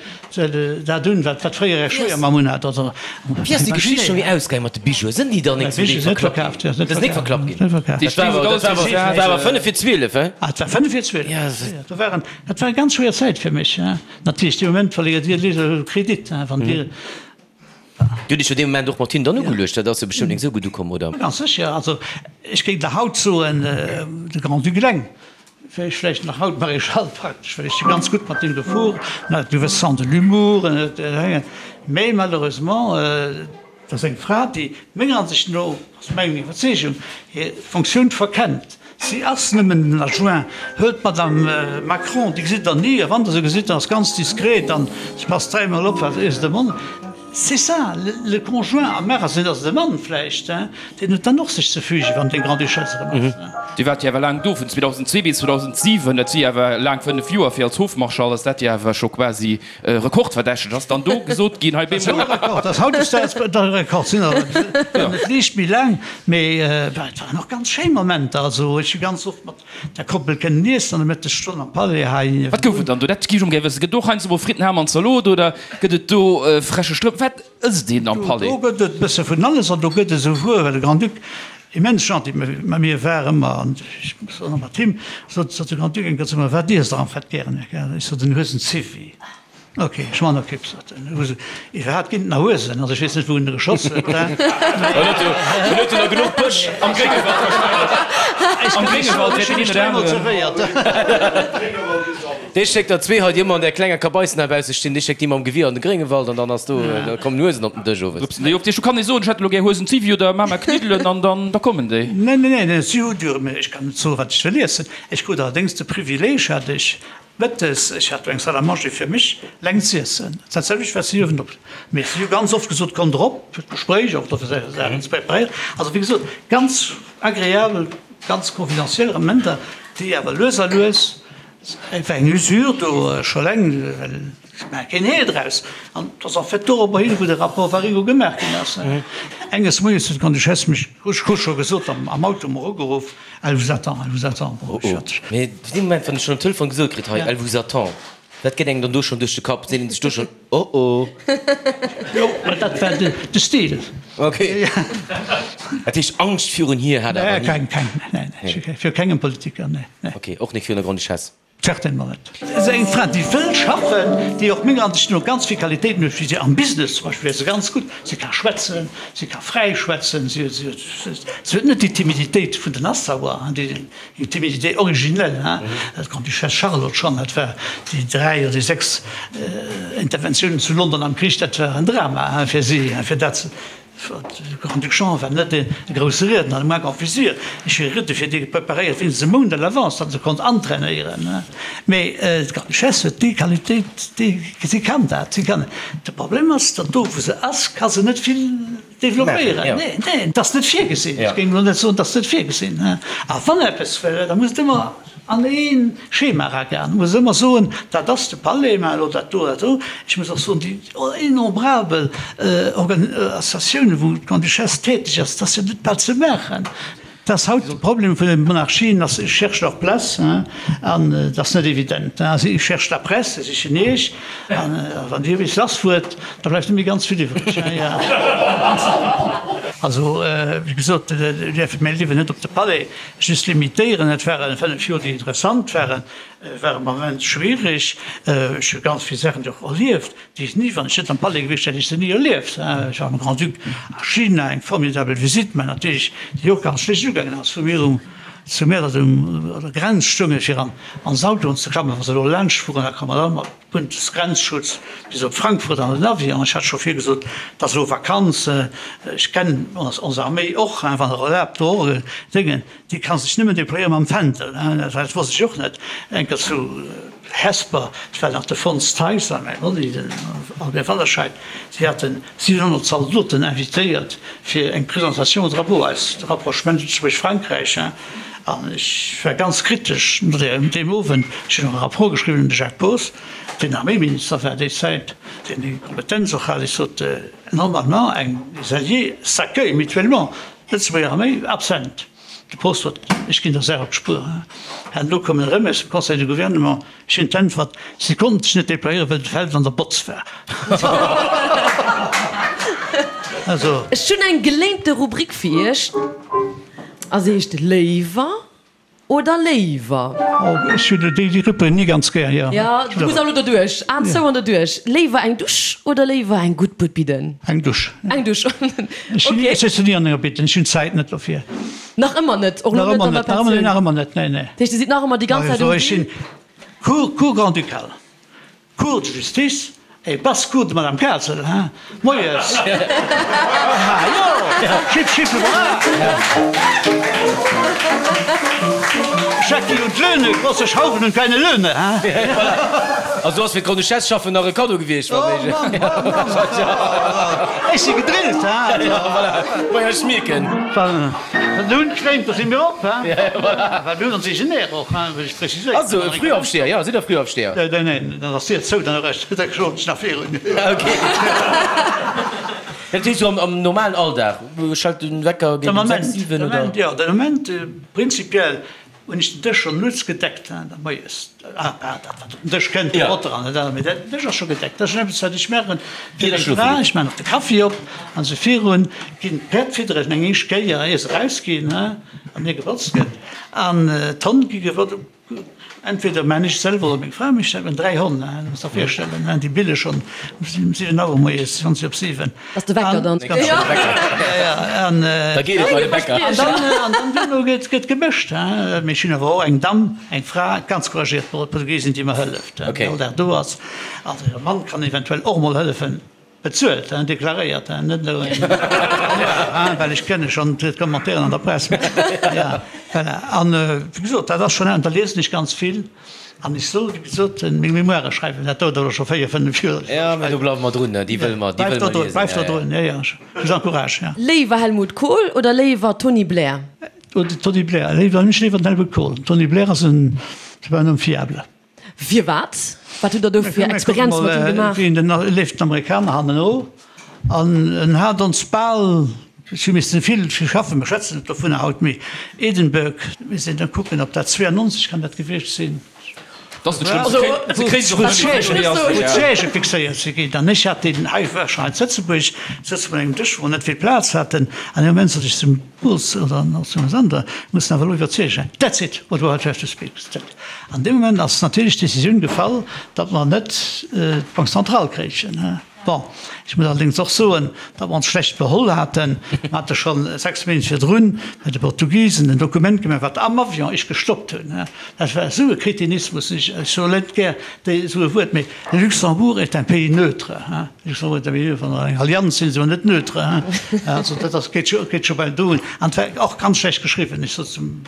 dat un, wat wat fréier Är Schwéiermamm un hat. Also, Wéi ass déi Geschicht scho méi ausgaangen mat de Bijouen? Sinn déi dann nik zum Deel verklappt ginn? Dat ass nik verklappt ginn? Dat war awer, dat war awer, dat war awer fënnef vir 12, he? Ah, et war fënnef vir 12, jo. Do waren, dat war eng ganz schwéier Zäit fir mech, he. Natierlech, dee Moment verléiert Dir de Kredit, he, wann Dir. Dir hutt Iech jo dee Moment och mat hinnen dann ugeluecht, dat ass jo bestëmmt nik esou gutt ukomm, oder? Ganz sécher. Also ech géing der haut soen, de Grand-Duc eleng wär ech vläicht nach haut Maréchal praktesch, well ech si ganz gutt mat deem gefuer, en hat e gewësse Sens de l'humour, en huet, mä malheureusement, et ass eng Fra, déi menger Ansicht no, ass meng Iwwerzeegung, hir Fonctioun verkennt. Si ass nëmmen den Adjoint. Huelt d'Madame Macron, déi gesitt Der ni, a wann Der se gesitt, dann ass ganz diskret an se passt dräimol op, wat ier se de Mond. C'est ça, le conjoint. Am Magasin ass et e Mann vläicht, deen huet dann och sech ze fügen, wann deng Grande-Duchesse erëm ass. Dir waart jo awer laang do, vun 2002 bis 2007, dat si awer laang 5 Joer. Fir als Hofmarschall ass dat jo awer scho quasi Rekordverdächteg ass dann do gesot ginn hei bemol. Dat ass Rekord, ass hautdesdaags de Rekord sinn awer net liicht méi laang, mee et waren och ganz schéi Momenter. Also ech hu ganz oft mat der Koppel kënnen iessen an der Mëttesstonn am Palais hei. Wat gouf et dann do? Dat géif ech emol gär wëssen. Gëtt do och heiansdo mol Fritten, Ham an Zalot oder gëtt et do freche Strëmp? Wat ësst een am Palais? Do gëtt et e bësse vun alles an do gëtt et esouguer, well de Grand-Duc immens gentil mat mir war ëmmer an ech och mat him, sot sot de Grand-Duc eng Kéier zu mer, Wat iesst Der am fait gären, Här Kerr? Ech sot, En Huesenziwwi. Ok, ech man Okipp, sot en. Huesen, iwwerhaapt ginn et nach Huesen? Also ech weess net, wou en e geschoss huet. En huet jo, en huet jo nach genuch Bësch am Gréngewald wahrscheinlech. Am Gréngewald wäert deen een oder aneren. Dee schéckt der zwee hei, déi ëmmer an där klenger Kabaissen heibausse stinn, dee schéckt déi mam Gewier an de Gréngewald an dann ass do, da kommen Huesen op den Dësch owes. Rupsen déi of. Du kann ee soen, ech hätt elo gär Huesen Ziwwi oder Mama Kniddelen an dann, da kommen déi. Neen, neen, neen, si hu jo, mä ech kann net soen, wat ech wëll iessen. Ech krut allerdéngs de Privileeg, hat ech mëttes, ech hat do eng Salle à manger fir mech, leng z'iessen. Dat selwecht wat si uewen op, mee si hu ganz oft gesot, Kommt erop fir d'Gespréich, och dofir Saachen ze preparéieren. Also wéi gesot, ganz agreabel, ganz confidentiel Momenter, déi awer lues a lues, Et war eng Usure do scho laang, well ech maache keen Heel draus. An et ass en fait dorobber hin, wou de Rapport Waringo gemaach ginn ass. Enges Moies huet d'Grande-Duchesse mech, ech hu scho gesot, am Auto mer ugeruff, Elle vous attend, elle vous attend. Bon, ech hat. Mee dee Moment, wann ech schonn um Telefon gesot kritt, hei, elle vous attend, wat geet engem dann do schonn duerch de Kapp? Seet een sech do schonn, Oh oh. Jo, mä dat war de Stil. Ok. Dat heescht, Angscht virun hir hat awer ni? Keng, keng, nee, nee, viru kengem Politiker, nee, nee. Ok, och net virun der Grande-Duchesse? Certainement net. Se ass eng Fra, déi wëll schaffen, déi och menger Ansicht no ganz vill Qualitéiten huet, wéi se am Business zum Beispill wär se ganz gutt. Si ka schwätzen, si ka fräi schwätzen, si huet net déi Timiditéit vun den Nassauer, déi Timidité originelle, hein, d'Grande-Duchesse Charlotte schonn, dat war déi dräi oder déi sechs Interventiounen zu London am Krich, dat war en Drama, hein, fir si, hein, fir dat ze. De Grand-Duc Jean war net e grousse Riedner, le moins qu'on puisse dire. Ech hu Riede fir dee preparéiert wéinstens e Mount à l'avance, datt e se konnt antrainéieren, hein. Mee d'Grande-Duchesse huet déi Qualitéit, déi, si kann dat, si kann. De Problem ass, datt do, wou se ass, ka se net vill Developpéieren? Nee, nee, et ass net virgesinn. Ech géing elo net soen, et ass net virgesinn. A wann eppes wëll, da muss et ëmmer an ee Schema eragoen. Muss ëmmer soen, dat ass de Palais, mä elo dat do, dat do. Ech muss och soen, déi innombrabel Organisatiounen, wou d'Grande-Duchesse täteg ass, dat ass jo net bal ze maachen. Et ass haut de Problem vun den Monarchien, ass, ils cherchent leur place, an et ass net evident. Ils cherchent la presse, se sichen Iech, an wann Dir bis lass fuert, da bleift net méi ganz vill iwwreg. Also, wéi gesot, mir däerfe mäi Liewen net op de Palais just limitéieren. Et ware 5 Joer, déi interessant waren, waren immens schwiereg. Ech hu ganz vill Saachen och erlieft. Déi ech ni, wann ech net am Palais gewiescht wär, hätt ech se ni erlieft. Ech war mam Grand-Duc a China, eng formidabel Visite, mä natierlech déi och ganz schlecht ugaangen ass, wou mir um zu Mäertert un der Grenz stoungen, fir an ons Autoen ze klammen, wa se elo laanscht fueren, da komme mer all mat Bundesgrenzschutz bis op Frankfurt an den Avion. Ech hat scho virgesot, et ass elo Vakanz, ech kennen ons Arméi och, wann Der erlaabt, do och Déngen, déi ka sech nëmmen déployéiere mam Fändel, dat wosst ech och net, enker zu Hesper, et war nach de Fons Theis a mäi Monni, den Albert Wallerscheid, si haten 700 Zaldoten invitéiert fir eng Présentation au drapeau, eist Rapprochement Lëtzebuerg-Frankräich. An ech war ganz kritesch no deem Owend. Ech hunn och e Rapport geschriwwen un de Jacques Poos, deen Arméiminister war déi Zäit, deen déi Kompetenz och hat. Ech sot, Normalement, eng, les alliés s'accueillent mutuellement, d'Lëtzebuerger Arméi absent. De Post sot, Ech ginn der Saach op d'Spuer. An elo koum en erëm aus dem Conseil de Gouvernement, ech hunn d'Äntwert, Si konnten sech net déployéieren, well de Feld an der Botz war. Also. Ech hunn eng geléinte Rubrik fir Iech a se heescht Léiwer oder léiwer. Oh, ech hunn déi Rubrik ni ganz gär, jo. Jo, du muss awer elo doduerch. Aen zou an doduerch. Léiwer eng Dusch oder léiwer eng gutt Bued bidden? Eng Dusch. Eng Dusch, ok. Ech sëtzen ni an enger Bidden, ech hunn d'Zäit net dofir. Nach ëmmer net? Och elo net an der Pensioun? Nach ëmmer net, nee, nee. Dat heescht, Dir sidd nach ëmmer déi ganz Zäit um Ech sinn Cour, Cour grand-ducale, Cour de justice et basse-cour de Madame Kasel, hein. Moies! Ha jo! Schipp, schipp, hurra! Schecki und Löhne, große Schrauben und kleine Löhne, hein. Also du ass fir d'Grande-Duchesse schaffen nach e Kaddo gewiescht, wa méiglech. Oh Mann, oh Mann, ech si gedrillt, hein. Ja, voilà. Maja, ech mierken. Wann de Hunn schwémmt, da si mir op, hein. Voilà. Well mir hunn ons eegen Air och, hein, wëll ech preziséieren. Also e Frühaufsteher, jo, sidd Der Frühaufsteher? Neen, neen, dann ass d'Dier zou, dann errecht, da schlofen ech nach virun. Ok. Dat heescht, sou am normalen Alldag, schellt den Wecker géint um 6, 7 oder? Jo, den Moment, prinzipiell hunn ech den Dësch schonn nuets gedeckt, hein, da moies, ah, dat wat op den Dësch kënnt, de Botter an dat anert, mee den Dësch ass scho gedeckt. Dat ass schonn eppes, wat ech maachen fir meng Fra. Ech maachen och de Kaffi op an esou virun, ginn d'Päerd fidderen eng éischt Kéier, ier se erausginn, hein, an ier gebotzt gëtt, an d'Honn gi gewot. Entweder maan ech et selwer oder meng Fra mécht dat. Mir hunn 3 Honn, du muss der virstellen, déi bille schonn um 7 Auer moies, 20 op 7. Ass de Wecker dann? Ganz schnell Wecker. An Da geet et bei de Bäcker. An dann, an dann duerno gëtt, gëtt gemëscht. Mee ech hunn awer och eng Damm, eng Fra, ganz couragéiert Portugiesin, déi mer hëlleft, déi all Dag do ass. Also hire Mann kann eventuell och emol hëllefen. Bezuelt, hein, deklaréiert, hein, net elo een, hein, well ech kenne schonn d'Commentairen an der Press. Ja, voilà. An, wéi gesot, dat ass schonn, an da liesen ech ganz vill an ech soll, wéi gesot, meng Memoiren schreiwen, dat dauert awer scho véier, fënnef Joer. Ja, mä do bleiwe mer drun, déi wëlle mer, déi wëlle mer liesen. Bleift der drun, jo, jo, ech vous encourage, ja. Léiwer Helmut Kohl oder léiwer Tony Blair? Tony Blair, léiwer, ech léiwer den Helmut Kohl. Tony Blair ass en, c'est pas un homme fiable. Firwat? Wat hutt der do fir Experienze mat him gemaach? Wien den leeft den Amerikaner hanneno an en hat ons bal, ech hu missen vill schaffen, mer schwätzen net dovunner haut, mee Edinburgh, mir sinn da kucken, ob dat 92 kann dat gewiescht sinn, wou d'Siègë fixéiert si ginn. An ech hat deen, hei war schonn hei zu Lëtzebuerg, sëtze mer un engem Dësch, wou mer net vill Plaz haten, an dee Moment sot ech zum Boss oder zum Sander, mir mussen awer elo iwwerzeegen, that's it, what we have to speak. An deem Moment ass natierlech d'Décisioun gefall, datt mer net d'Banque centrale kréichen. Bon, ech muss allerdéngs och soen, datt mer ons schlecht beholl haten. Mer hate scho 6 Méint virdrun bei de Portugisen en Dokument gemaach, wat am Avion ech gestoppt hunn. Dat war esou e Kretinismus, ech soe net gär esou e Wuert, mee le Luxembourg est un pays neutre. Luxembourg est un pays neutre, wann mer an enger Allianz sinn, si mer net neutre. Also dat ass, geet scho bal do un. An et war och ganz schlecht geschriwwen. Ech sot zum.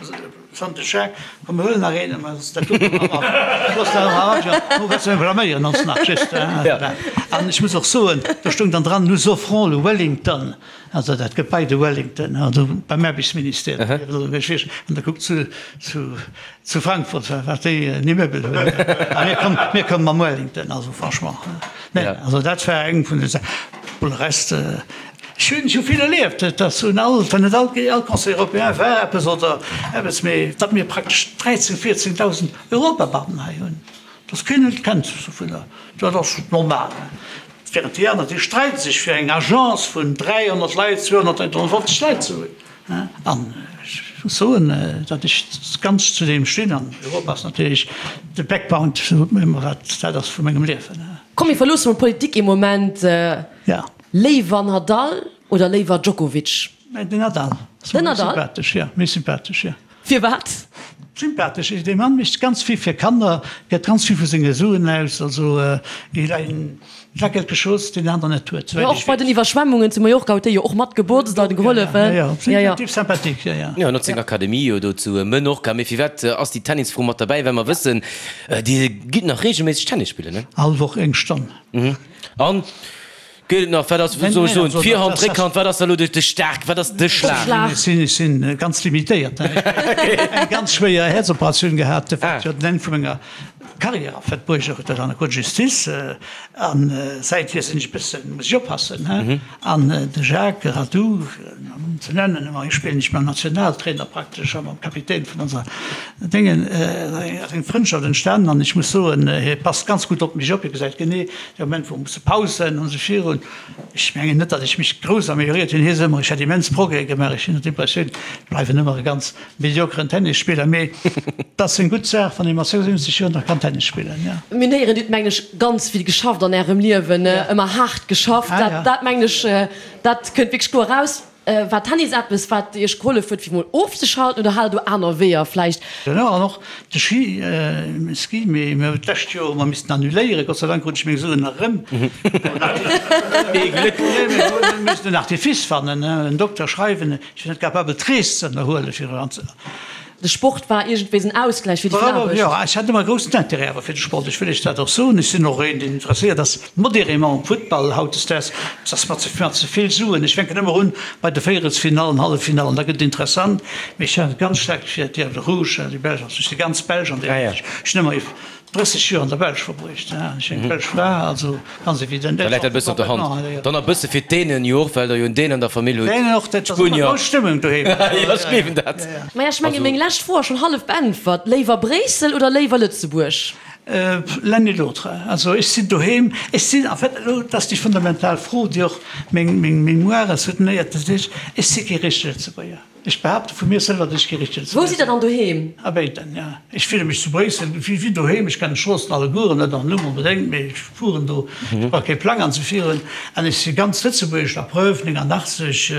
Sante Jacques, komm mir huelen nach een, mä dat do looss dat am Avion, do wëlls de blaméieren ons nach just. An ech muss och soen, do stoung dann dran, nous offrons le Wellington, also dat Gebai de Wellington, also beim Aarbechtsministère, an da kuckt zu zu Frankfurt, wat déi en Immeuble hunn, a mir kommen, mir kommen mam Wellington, also franchement, nee, also dat war eng vun de Saachen. Pour le reste, Ech hunn scho vill erlieft, et ass un all, wann net all, all Conseil européen war eppes oder eppes, mee datt mir praktesch 13, 14.000 Europabeamten hei hunn, datt keen et kennt dovunner, dat ass normal. Während déi aner, déi streide sech fir eng Agence vun 300 Leit, 200, 350 Leit ze hunn. An ech muss soen, datt ech ganz zu deem stinn an Europa ass natierlech de Backbone, sot mer ëmmer, wat dat ass vu mengem Liewen. Komm mir verloosse mol d'Politik ee Moment. Léiwer Nadal oder léiwer Djokovic? Den Nadal. Den Nadal? Sympathesch, jo, méi sympathesch, jo. Firwat? Sympathesch, dee Mann mécht ganz vill fir Kanner, gëtt ganz vill vu senge Suen aus, also il a une il a quelque chose, deen den aner net huet, souwäit ech weess. Och bei den Iwwerschwemmungen zu Mallorca huet dee jo och mat gebotzt an gehollefen. Jo, jo, jo, Typ sympathique, jo, jo. Jo, en huet seng Akademie jo do zu Menorca. Mee firwat ass déi Tennisfro mat derbäi? Well mer wëssen, Dir gitt nach reegelméisseg Tennis spillen, ne? All Woch eng Stonn. An Geet et nach? Wat ass, wou soll ech soen, d'Virhand, d'Réckhand, wat ass da elo de staark, wat ass de Schlag? Ech sinn, ech sinn ganz limitéiert. Ech hunn eng ganz schwéier Häerzoperatioun gehat, wat jo den Enn vu menger Carrière en fait bruecht huet, dat an der Cour de Justice. An säithier sinn ech e bëssen, muss ech oppassen. An de Jacques Radou. ze nennen, ëmmer ech spillen ech mam Nationaltrainer praktesch a mam Kapitän vun onser Déngen, ass eng Frëndschaft entstanen an ech muss soen, hie passt ganz gutt op mech op, hie gesäit genee de Moment wou musse Pausen an esou virun. Ech mengen net, datt ech mech grouss amelioréiert hunn, hie seet ëmmer, ech hätt immens Progrès gemaach, ech hunn d'Impressioun, ech bleiwen ëmmer e ganz mediokeren Tennisspiller, mee et ass eng gutt Saach, wann ee mat 76 Joer nach kann Tennis spillen, jo. Mir héieren, Dir hutt, mengen ech, ganz vill geschafft an Ärem Liewen, ëmmer haart geschafft. Dat, dat mengen ech, dat kënnt wierklech kloer eraus. War Tennis eppes, wat Iech gehollef huet, fir mol ofzeschalten, oder hat Der do aner Weeër vläicht? Jo, an och de Ski, Ski, mee mir hunn d'lescht Joer hu mer missten annuléieren. Gott sei Dank krut ech meng Suen nach erëm. Ee Gléck! Mir hu missen en Artifice fannen, en Dokter schreiwen. Ech sinn net capabel d'Rees ze ënnerhuelen fir eran ze. De Sport war iergendwéi en Ausgläich fir déi vill Aarbecht. Jo, ech hat ëmmer e groussen Intérêt awer fir de Sport, ech wëll Iech dat och soen. Ech sinn och een, deen interesséiert ass modérément um Futtball hautdesdaags. Et ass mer ze mer ze vill Suen. Ech fänken ëmmer un bei de Véierelsfinallen, Halleffinallen, da gëtt et interessant. Mee ech hat ganz staark fir d'Diables Rouges, déi Belsch, also ech si ganz belsch an där Hinsicht. Ech hunn ëmmer 30 Joer an der Belsch verbruecht, ech eng belsch Fra, also ganz evident. Da läit dat e bëssen op der Hand. Dann e bësse fir d'Dänen jo och, well der jo en Dän an der Famill hutt. D'Dänen och, dat ass ëmmer grouss Stëmmung doheem. Jo, ech gleewen dat. Maja, ech mengen, meng lescht Fro ass schonn hallef beäntwert. Léiwer Bréissel oder léiwer Lëtzebuerg? L'un et l'autre. Also ech sinn doheem, ech sinn en fait, elo, dat ass déi fundamental Fro, déi och meng Mémoire soutenéiert, dat heescht, ech si kee richtege Lëtzebuerger. Ech behaapte vu mir selwer, datt ech kee richtegen Wou sidd Der dann doheem? A béiden, jo. Ech fille mech zu Bréissel wéi doheem. Ech kennen d'Stroossen allegueren, net am Numm onbedéngt, mee ech fueren do, ech brauch kee Plang anzefieren. An ech si ganz lëtzebuergesch, la preuve, 89,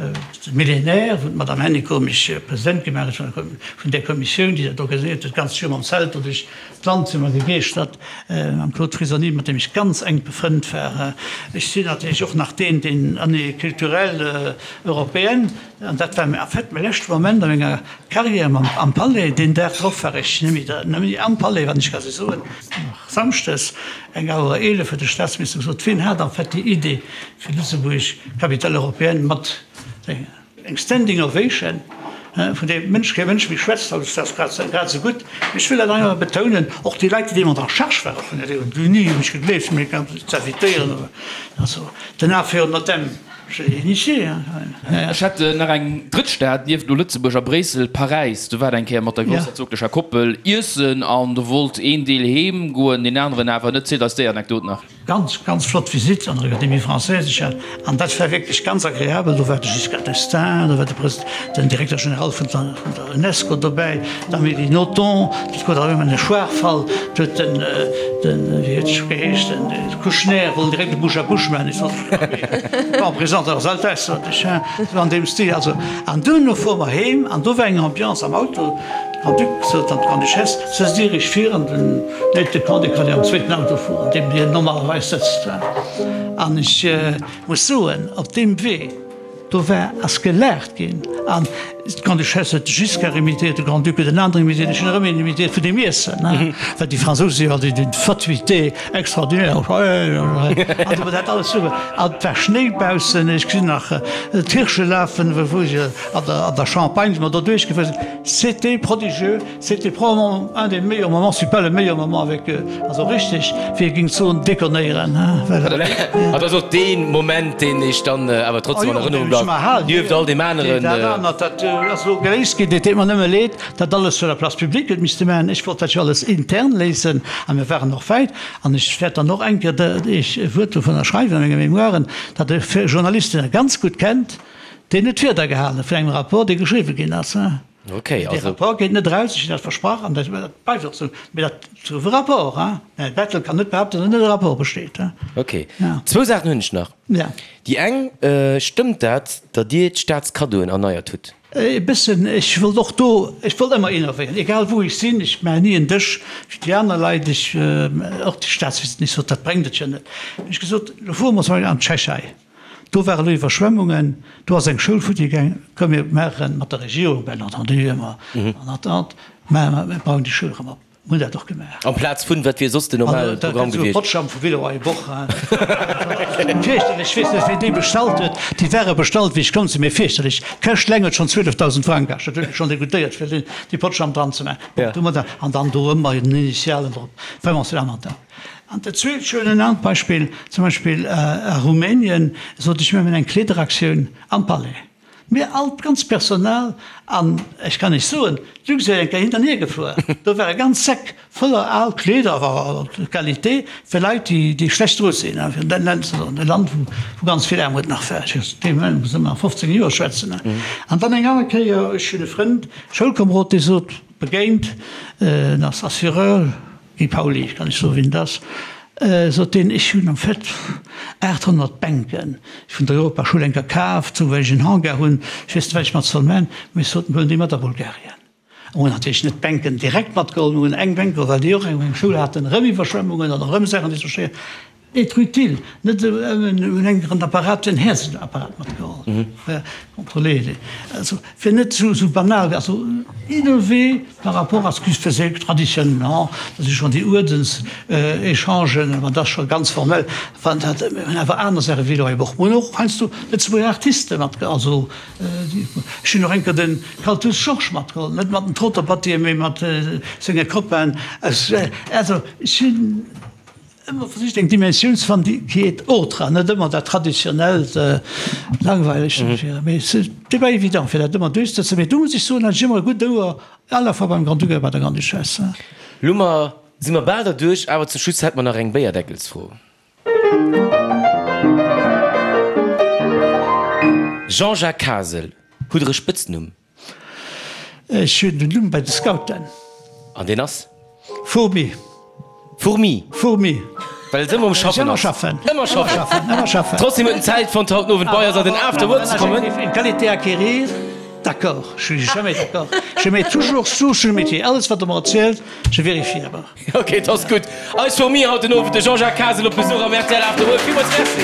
de Millénaire, wou d'Madame Hennicot mech President gemaach huet vun där Kommissioun, déi dat organiséiert huet, d'ganzt Joer mam Zelt do duerch d'Land si mer gegeeschtert, mam Claude Frisoni, mat deem ech ganz enk befrënnt war. Ech sinn natierlech och nach deen, deen Année culturelle européenne, An dat war en fait mäi leschte Moment a menger Carrière am Palais. Deen Dag drop war ech net méi am Palais, wann ech ka sou soen. Samschdes eng Auer 11 huet de Staatsminister gesot, wien hat en fait déi Idee fir Lëtzebuerg Capitale européenne mat eng Standing Ovation, vun deem Mënsch kee Mënsch méi schwätzt haut, ass dat grad esou gutt. Mee ech wëll dat einfach betounen, och déi Leit, déi deemools en charge ware vun der Déi hunn ni u mech gegleeft, fir mech z'invitéieren. Also den Affaire Notem. Ech hätt nach eng drëtt Stad nieft elo Lëtzebuerg a Bréissel, Paräis. Do war et eng Kéier mat der groussherzoglecher Koppel iessen an do wollt een Deel heem goen, deen aneren awer net. Zielt eis déi Anekdot nach. Ganz, ganz flott Visitt an der Académie Française. Ech hat, an dat war wierklech ganz agreabel, do war de Giscard d'Estaing, do war de Pres, den Directeur général vun der, vun der UNESCO dobäi, d'Amélie Nothomb, dat gouf awer ëmmer e Schwaachfall, do huet den, den, wéi huet e scho geheescht, den Kouchner wollt direkt e Bouche à bouche maachen. Ech sot, Bon, présente leurs Altesses, sot ech, hein, sou an deem Stil. Also, an duerno fuere mer heem an do war eng Ambiance am Auto. De Grand-Duc sot an d'Grande-Duchesse, Sëtzt Dir Iech vir an den Aide de camp, dee kann jo am zweeten Auto fueren, an deem hien normalerweis sëtzt. An ech muss soen, op deem Wee, Do war, ass gelaacht ginn an d'Grande-Duchesse huet de Giscard imitéiert, de Grand-Duc huet en aneren imitéiert, ech hunn erëm een imitéiert vun deem Iessen, hein, well déi Fransouse si jo alt d'une fatuité extraordinaire, an do war dat alles super. An et war Schnéi baussen, ech gesinn nach d'Hirsche lafen, wou ech an der, an der Champagne si mer do duerchgefuer sinn. C'était prodigieux. C'était probablement un des meilleurs moments, si pas le meilleur moment avec eux. Also richteg, wéi ee géing soen, déconnéieren, hein, well. An dat ass och dee Moment, deen Iech dann awer trotzdem an Erënnerung bleift, nieft all deem aneren. Dat anert, dat ass elo geléist ginn. Et deet mer nëmme leed, dat alles sur la place publique huet misste maachen. Ech wollt dat jo alles intern léisen a mir waren och wäit. An ech wäert dann och eng Kéier Iech e Wuert dovunner schreiwen a menge Mémoiren, datt e Journalist, deen e ganz gutt kennt, deen huet d'Wieder gehale vun engem Rapport, dee geschriwwe ginn ass, hein. Okay, also. Dee Rapport geet net eraus, ech hunn dat versprach an dat bleift och esou. Mee dat gouf e Rapport, hein. Den Här Bettel kann net behaupten, datt net e Rapport besteet, hein. Okay. Zwou Saachen hunn ech nach. Ja. Déi eng, Stëmmt dat, datt Dir d'Staatskaddoen erneiert hutt? E bëssen. Ech wollt och do, ech wollt ëmmer innovéieren, egal wou ech sinn. Ech maachen ni en Dësch wéi déi aner Leit. Ech, och déi Staatsvisiten, ech sot, dat bréngt et jo net. Hunn ech gesot, elo fuere mer zum Beispill an d'Tschechei. Do ware lo Iwwerschwemmungen, do ass eng Schoul futti gaang. Komm mir maache mat der Regierung, bien entendu ëmmer en attente, mä mir bauen déi Schoul erëm op. Mir hunn dat och gemaach. Amplaz vun, wat wier soss den normale Programm gewiescht? Potschamm vu Villeroy Boch. Fierchterlech, ech weess net wien déi bestallt huet. Déi ware bestallt wéi ech komm sinn, mee fierchterlech. D'Këscht eleng huet schonn 12.000 Frang kascht. Dat huet mech schonn degoutéiert fir déi Potschamm dran ze maachen. Bon, domadder, an dann do ëmmer den Initialen drop. Vraiment, c'est lamentable. An dat zweet schönen anert Beispill, zum Beispill a Rumänien, sot ech, mir hunn eng Kleederaktioun am Palais. Mir all, d'ganz Personal, an ech kann Iech soen, d'Luxair eng Kéier hin an hier gefuer, do ware ganz Säck voller al Kleeder, awer Qualité, fir Leit, déi schlecht dru sinn, fir dat Land ze soen, e Land, wou ganz vill Aarmut nach war. Ech dee Moment muss ëmmer a 15 Joer schwätzen. An dann eng aner Kéier, ech hunn e Frënd, Schoulkomerod, dee sot, begéint, en ass Assureur, Guy Pauly, ech kann lech soen, wien et ass, sot deen, ech hunn am fait 800 Bänken vun der Europaschoul eng Kéier kaaft, sou well ech en Hangar hunn, ech weess net, wat ech mat soll man, mee ech sot, mir huelen déi mat a Bulgarien. Mir hunn natierlech net d'Bänken direkt matgeholl, mir hunn eng Bänk geholl, well déi och eng Schoul haten, erëm Iwwerschwemmungen an erëm Saachen, déi sou schéi Être utile, net esou ëmmen un engem Apparat, en Häerzenapparat matgeholl, contrôler, also fir net esou esou banal, also innover par rapport à ce qui se faisait traditionnellement, dat si schonn déi Uerdenséchangen, ma dat ass scho ganz formell, wann dat, mir hunn awer aner Saache wéi elo och, mir hunn och heiansdo Lëtzebuerger Artiste matgeholl, also ech hunn och eng Kéier de Kaltus Georges matgeholl, net mat den Troterbattier, mee mat senge Copainen aus, also ech hunn. Ëmmer versicht eng Dimensioun ze fannen, déi qui est autre, an net ëmmer dat traditionellt, langweilegt, mee c'est pas évident fir dat ëmmer duerchzesetzen. Mee do muss ech soen, hat ech ëmmer e gutt Ouer, à la fois beim Grand-Duc a bei der Grande-Duchesse. Lo mer si mer bal derduerch, awer zum Schluss hätt mer nach eng Béierdeckelsfro. Jean-Jacques Kasel, hutt Der e Spëtznumm? Ech hunn den Numm bei de Scouten. An deen ass? Fourmi. Fourmi? Fourmi. Well et ëmmer um Schaffen ass. Ëmmer schaffen. Ëmmer schaffen. Ëmmer schaffen. Trotzdem huet en Zäit fonnt haut den Owend bei eis an den After Work ze kommen. Une qualité à acquérir, d'accord, je suis jamais d'accord, je mets toujours sous sur le métier, alles wat der mer erzielt, je vérifie d'abord. Ok, et ass gutt. Eis Fourmi haut den Owend, de Jean-Jacques Kasel op Besuch am rtl After Work. Villmools Merci.